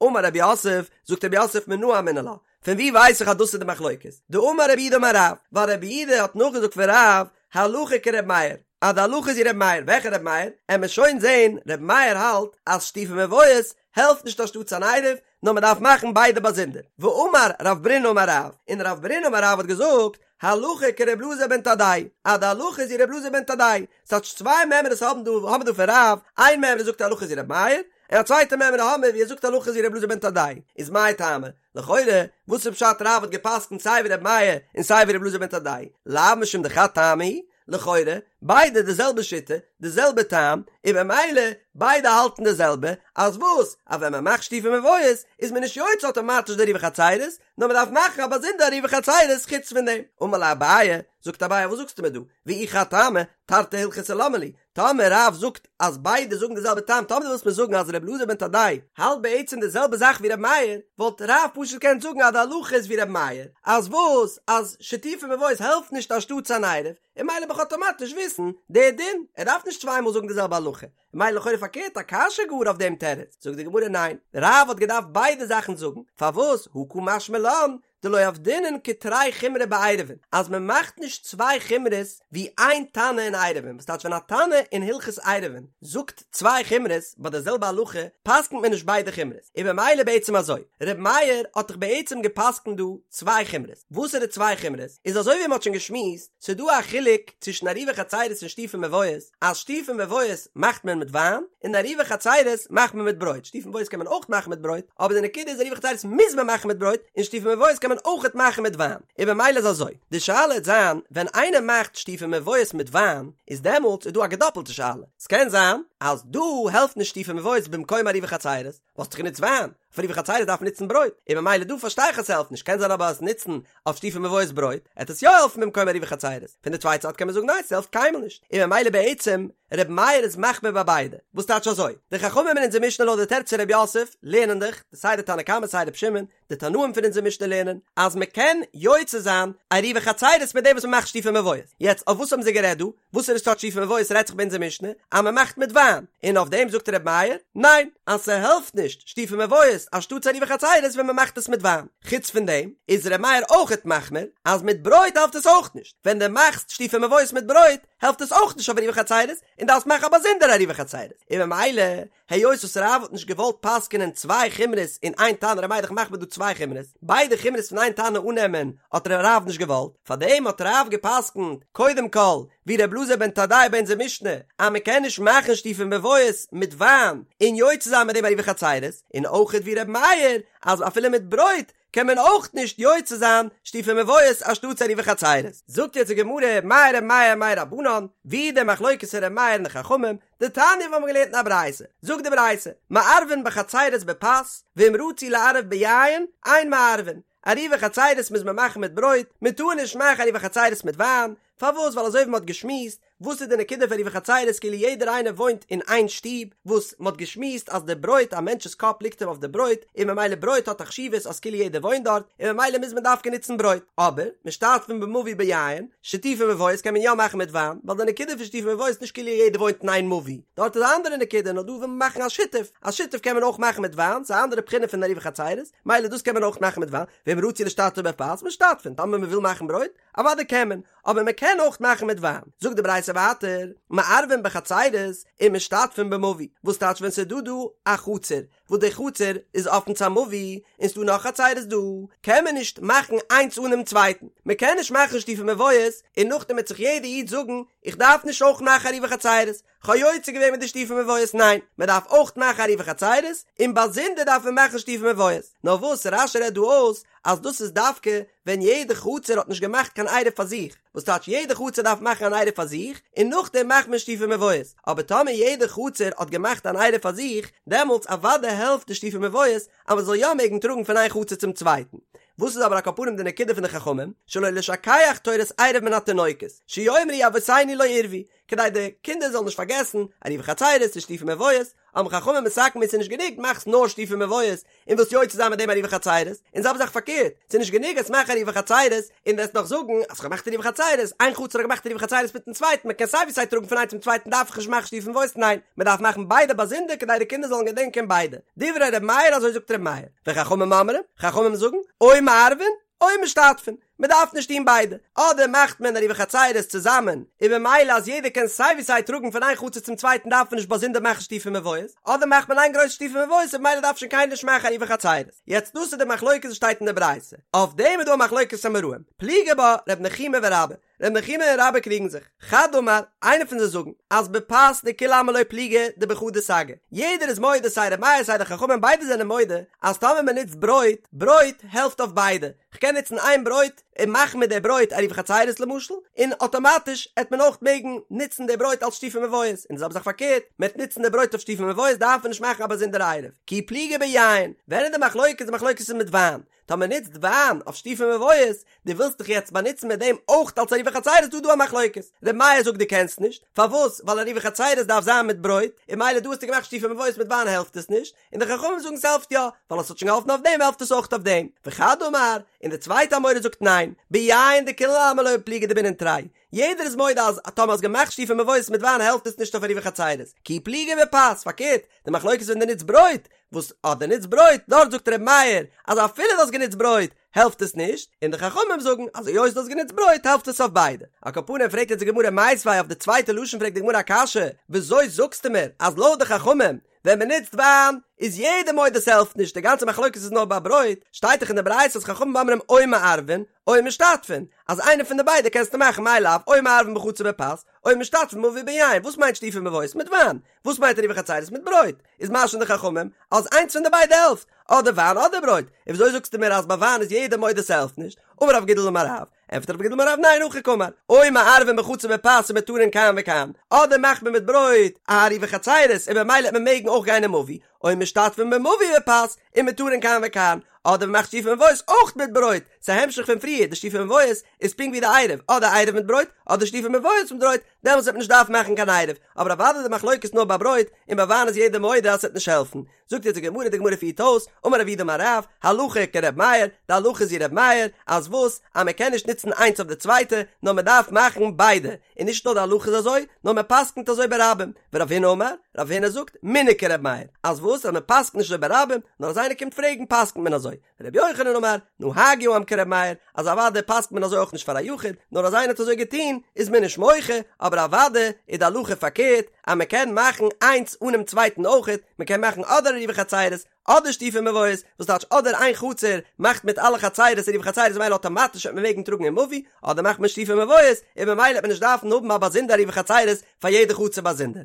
Speaker 1: אמר רב יוסף, זאגט רב יוסף מנא אמינא לה, פון ווי ווייס איך אז דאס איז די מחלוקת? דאמר רב יהודה אמר רב, ווייל רב יהודה האט נאכגעזאגט פון רב, הלכה כר' מאיר, אז די הלכה איז ווי ר' מאיר, וועלכע ר' מאיר? עמער שוין זעהן, ר' מאיר האלט אז שיתופי מבואות העלפט נישט אנשטאטס אן עירוב, נאר מען דארף מאכן ביידע באזונדער. ואמר רב ברונא אמר רב, און רב ברונא אמר רב האט געזאגט, הלכה כר' אלעזר בן תדאי, אז די הלכה איז ווי ר' אלעזר בן תדאי, ס'טייטש צוויי מימרות האבן דא האבן מיר דא פון רב, איין מימרא זאגט הלכה איז ווי ר' מאיר, און א צווייטע מימרא האמיר ווי ער זאגט הלכה איז ווי ר' אלעזר בן תדאי, איז מאי טעמא? לכאורה, וואס איז פשט רב האט געפסקנט סיי ווי ר' מאיר און סיי ווי ר' אלעזר בן תדאי? לאו משום דחד טעמא הוא? לכאורה, ביידע די זעלבע שיטה, די זעלבע טעם, און במילא ביידע האלטן די זעלבע, אז וואס? אז ווען מען מאכט שיתופי מבואות איז מען נישט יוצא אטאמאטיש די עירובי חצירות, נאר מען דארף מאכן א באזונדערע עירובי חצירות חוץ פון דעם. אמר ליה אביי, זאגט אביי וואס זאגסטו מיר דא? ואי חד טעמא, תרתי הלכתא למה לי? טאמער רב זאגט אז ביידע זאגן די זעלבע טעם, טאמער דו ווילסט מיר זאגן אז ר' אלעזר בן תדאי האלט בעצם די זעלבע זאך ווי ר' מאיר, וואלט רב פשוט געקענט זאגן אז די הלכה איז ווי ר' מאיר, אז וואס? אז שיתופי מבואות העלפט נישט אנשטאטס אן עירוב, און מילא וועל איך אטאמאטיש וויסן די דין, ער דארף נישט צוויי מאל זאגן די זעלבע הלכה, מילא לכאורה פארקערט א קשיא גאר אויף דעם תירוץ, זאגט די גמרא ניין, רב האט געדארפט ביידע זאכן זאגן, פארוואס הא קא משמע לן דלא עבדינן כתרי חומרי בעירובין, אז מען מאכט נישט צוויי חומרות ווי איין תנא אין עירובין, וואס טייטש ווען א תנא אין הלכות עירובין זאגט צוויי חומרות ביי די זעלבע הלכה פסק'נט מען נישט ביידע חומרות, און במילא בעצם אזוי, ר' מאיר האט דאך בעצם געפסק'נט דא צוויי חומרות, וואסערע צוויי חומרות? איז אזוי ווי מען האט שוין געשמועסט, ס'איז דא א חילוק צווישן עירובי חצירות און שיתופי מבואות, אז שיתופי מבואות מאכט מען מיט וויין, און עירובי חצירות מאכט מען מיט ברויט, שיתופי מבואות קען מען אויך מאכן מיט ברויט, אבער די נקודה איז עירובי חצירות מוז מען מאכן מיט ברויט, און שיתופי מבואות קען. קען מען אויכעט מאכן מיט וויין, און במילא איז אזוי, די שאלה העט זיין, ווען איינער מאכט שיתופי מבואות מיט וויין, איז דעמאלטס איז דא א געדאפלטע שאלה, ס'קען זיין אז דא העלפט נישט שיתופי מבואות במקום עירובי חצירות, האסט דאך גענוצט וויין, אויף עירובי חצירות דארף מען נוצן ברויט, און ממילא דא פארשטיי איך אז ס'העלפט נישט, קען זיין אבער אז נוצן אויף שיתופי מבואות ברויט, עט עס יא העלפן במקום עירובי חצירות, פון די צווייטע זייט קען מען זאגן ניין ס'העלפט קיינמאל נישט, און ממילא בעצם ר' מאיר איז מחמיר ביי ביידע, וואס טייטש אזוי? די חכמים אין אונזער משנה לויט די תירוץ פון ר' יוסף לערנען דאך, סיי די תנא קמא סיי ר' שמעון, די תנאים פון אונזער משנה לערנען אז מען קען יוצא זיין עירובי חצירות מיט דעם וואס מען מאכט שיתופי מבואות, יעצט אויף וואס האבן זיי גערעדט דא? וואסערע סארט שיתופי מבואות רעדט זיך ביי אונזער משנה אז מען מאכט מיט וויין? און אויף דעם זאגט ר' מאיר, ניין, אז ס'העלפט נישט שיתופי מבואות אנשטאטס עירובי חצירות ווען מען מאכט עס מיט וויין. חוץ פון דעם איז ר' מאיר אויכעט מחמיר אז מיט ברויט העלפט עס אויך נישט, ווען דו מאכסט שיתופי מבואות מיט ברויט העלפט עס אויך נישט אויף עירובי חצירות און דארפסט מאכן א באזונדערע עירובי חצירות, און ממילא היות וואס רב האט נישט געוואלט פסק'נען צוויי חומרות אין איין תנא, ר' מאיר איז דאך מחמיר דא צוויי חומרות, ביידע חומרות פון איין תנא אננעמען האט רב נישט געוואלט, פארדעם האט רב געפסק'נט קודם כל ווי ר' אלעזר בן תדאי ביי אונזער משנה אז מען קען נישט מאכן שיתופי מבואות מיט וויין און יוצא זיין מיט דעם עירובי חצירות, און אויכעט ווי ר' מאיר אז אפילו מיט ברויט קען מען אויך נישט יוצא זיין שיתופי מבואות אנשטאטס עירובי חצירות. זאגט יעצט די גמרא, מאי ר' מאיר מאי רבנן, ווי די מחלוקת פון ר' מאיר און די חכמים, דתניא וואס מ'האט געלערנט אין א ברייתא, זאגט די ברייתא, מערבין בחצירות בפת, ואם רצו לערב ביין, אין מערבין, עירובי חצירות מוז מען מאכן מיט ברויט, מען טאר נישט מאכן עירובי חצירות מיט וויין, פארוואס ווייל אזוי ווי מען האט געשמועסט, וואס איז די נקודה פון עירובי חצירות כאילו יעדער איינער וואוינט אין איין שטוב, וואס מען האט געשמועסט אז די ברויט א מענטש'ס קאפ ליגט אים אויף די ברויט, און ממילא ברויט האט א חשיבות אז כאילו יעדער וואוינט דארט, און ממילא מוז מען דווקא נוצן ברויט. אבער, משתתפין במבוי ביין, שיתופי מבואות קען מען יא מאכן מיט וויין, ווייל די נקודה פון שיתופי מבואות איז נישט כאילו יעדער וואוינט אין איין מבוי, דארט איז א אנדערע נקודה, נאר דא וויל מען מאכן א שיתוף, א שיתוף קען מען אויך מאכן מיט וויין, ס'איז א אנדערע בחינה פון עירובי חצירות, מילא דאס קען מען אויך מאכן מיט וויין, ואם רצו להשתתף בפת, משתתפין, טאמער מען וויל מאכן ברויט, אוודאי קען מען, אבער מען קען אויך מאכן מיט וויין. זאגט די ברייתא ווייטער, מערבין בחצירות ומשתתפין במבוי, וואס טייטש ווען ס'איז דא דא א חצר, וואס די חצר איז אפן צו א מבוי, און ס'דא נאך חצירות דא, קען מען נישט מאכן איינס אן דעם צווייטן, מען קען נישט מאכן שיתופי מבואות, און נאכדעם וועט זיך יעדע איד זאגן, איך דארף נישט אויך מאכן עירובי חצירות, כ'האב יוצא געווען מיט די שיתופי מבואות, ניין, מען דארף אויך מאכן עירובי חצירות, און באזונדער דארף מען מאכן שיתופי מבואות. נאר וואס רש"י רעדט דא אויס, אז דאס איז דווקא ווען יעדע חצר האט נישט געמאכט קיין עירוב פאר זיך, וואס טייטש יעדע חצר דארף מאכן אן עירוב פאר זיך, און נאכדעם מאכט מען שיתופי מבואות, אבער טאמער יעדע חצר האט געמאכט אן עירוב פאר זיך, דעמאלטס אוודאי העלפט די שיתופי מבואות אז מען זאל יא מעגן טראגן פון איין חצר צום צווייטן. וואס איז אבער על כל פנים די נקודה פון די חכמים, שלא לשכח תורת עירוב מן התינוקות, שיאמרו אבותינו לא עירבו, כדי די קינדער זאלן נישט פארגעסן, עירובי חצירות און שיתופי מבואות, האבן חכמים מתקן געווען ס'איז נישט גענוג מאכסט נאר שיתופי מבואות און ווילסט יוצא זיין מיט דעם עירובי חצירות, און זעלבע זאך פארקערט, ס'איז נישט גענוג אז מאך עירובי חצירות און וועסט נאך זאגן אז כ'האב געמאכט עירובי חצירות, איין חצר האט געמאכט עירובי חצירות מיטן צווייטן, מ'קען סיי ווי סיי טראגן פון איין צום צווייטן דארף איך נישט מאכן שיתופי מבואות, ניין, מ'דארף מאכן ביידע באזונדער כדי די קינדער זאלן געדענקען ביידע. דברי ר' מאיר אזוי זאגט ר' מאיר, וחכמים אומרים, חכמים זאגן, או מערבין, או משתתפין, מען דארף נישט טון ביידע, אדער מאכט מען עירובי חצירות צוזאמען, און ממילא אז יעדער קען סיי ווי סיי טראגן פון איין חצר צום צווייטן דארף מען נישט באזונדער מאכן שיתופי מבואות, אדער מאכט מען איין גרויסע שיתופי מבואות און ממילא דארף שוין קיינער נישט מאכן עירובי חצירות. יעצט דאס איז די מחלוקת וואס שטייט אין די ברייתא, אויף דעם איז דא א מחלוקת אמוראים, פליגי בה ר' נחומי ורבה, ר' נחומי און רבה קריגן זיך, חד אמר, איינער פון זיי זאגן, אז בפת דכולי עלמא לא פליגי דבחדא סגי, יעדער איז מודה סיי ר' מאיר סיי די חכמים ביידע זענען מודה אז טאמער מען נוצט ברויט, ברויט העלפט אויף ביידע, כ'קען נוצן איין ברויט און מאכן מיט די ברויט עירובי חצירות למשל, און אטאמאטיש עט מען אויך מעגן נוצן די ברויט אלס שיתופי מבואות, און די זעלבע זאך פארקערט, מען עט נוצן די ברויט אויף שיתופי מבואות דארף מען נישט מאכן א באזונדערע עירוב, כי פליגי ביין, ווען איז די מחלוקת? די מחלוקת איז מיט וויין, טאמער נוצט וויין אויף שיתופי מבואות, דו ווילסט דיך יעצט באנוצן מיט דעם אויך אלס עירובי חצירות דא דא א מחלוקת, ר' מאיר זאגט דו קענסט נישט, פארוואס? ווייל עירובי חצירות דארף זיין מיט ברויט, און ממילא דא האסטו געמאכט שיתופי מבואות מיט וויין העלפט עס נישט, און די חכמים זאגן ס'העלפט יא, ווייל עס האט שוין געהאלפן אויף דעם העלפט עס אויך אויף דעם, וחד אמר, און די צווייטע אמורא זאגט ניין, ביין דכולי עלמא לא פליגי דבעינן תרי, יעדער איז מודה אז טאמער האסט געמאכט שיתופי מבואות מיט וויין העלפט עס נישט אויף עירובי חצירות, כי פליגי בפת, פארקערט, די מחלוקת איז ווען דו נוצט ברויט, וואס אז דו נוצט ברויט, דארט זאגט ר' מאיר אז אפילו דו האסט גענוצט ברויט העלפט עס נישט, און די חכמים זאגן אז היות דו האסט גענוצט ברויט העלפט עס אויף ביידע. על כל פנים פרעגט יעצט די גמרא מיתיבי אויף די צווייטע לשון פרעגט די גמרא א קשיא, וויאזוי זאגסטו מיר אז לויט די חכמים. ווען מען נוצט וויין איז יעדער מודה ס'העלפט נישט, די גאנצע מחלוקת איז נאר ביי ברויט, שטייט דאך אין די ברייתא אז חכמים אומרים או מערבין או משתתפין, אז איינע פון די ביידע קענסטו מאכן מאי לאו או מערבין בחצר בפת, או משתתפין במבוי ביין, וואס מיינט שיתופי מבואות מיט וויין? וואס מיינט עירובי חצירות מיט ברויט? איז משמע די חכמים אז איינס פון די ביידע העלפט, אדער וויין אדער ברויט, און וויאזוי זאגסטו מיר אז ביי וויין איז יעדער מודה ס'העלפט נישט? אמר רב גידל אמר רב, ענטפערט רב גידל אמר רב ניין הכי קאמר, או מערבין בחצר בפת ומותרין כאן וכאן, אדער מאכט מען מיט ברויט א עירובי חצירות און במילא וועט מען מעגן אויך גיין אין מבוי, או משתתפין במבוי בפת ומותרין כאן וכאן, אדער מ'מאכט שיתופי מבואות אויך מיט ברויט, ס'איז א המשך פון פריער, די שיתופי מבואות איז פונקט ווי די עירוב, אדער עירוב מיט ברויט, אדער שיתופי מבואות מיט ברויט, דעמאלטס וועט מען נישט דארפן מאכן קיין עירוב, אבער אוודאי די מחלוקת נאר ביי ברויט, און ביי וויין איז יעדער מודה אז ס'וועט נישט העלפן. זאגט יעצט די גמרא, די גמרא פירט אויס, אמר רב יהודה אמר רב, הלכה כר' מאיר, די הלכה איז ווי ר' מאיר, אז וואס? אז מען קען נישט נוצן איינס אויף די צווייטע, נאר מען דארף מאכן ביידע, און נישט נאר די הלכה איז אזוי, נאר מען פסק'נט אזוי ברבים, ורב הונא אמר, רב הונא זאגט, מנהג כר' מאיר, אז וואס? אז מען פסק'נט נישט אזוי ברבים, נאר אז איינער קומט פרעגן פסק'נט מען אזוי, רבי יוחנן אמר, נהגו העם כר' מאיר, אז אוודאי פסק'נט מען אזוי אויך נישט פאר א יחיד, נאר אז איינער האט אזוי געטון, איז מען נישט מוחה, אבער אוודאי איז די הלכה פארקערט, אז מען קען מאכן איינס אנעם צווייטן אויכעט, מען קען מאכן אדער עירובי חצירות, אדער שיתופי מבואות, וואס טייטש אדער איין חצר מאכט מיט אלע חצירות עירובי חצירות ממילא אטאמאטיש וועט מען מעגן טראגן אין מבוי, אדער מאכט מען שיתופי מבואות, און ממילא וועט מען נישט דארפן האבן א באזונדער עירובי חצירות פאר יעדע חצר באזונדער.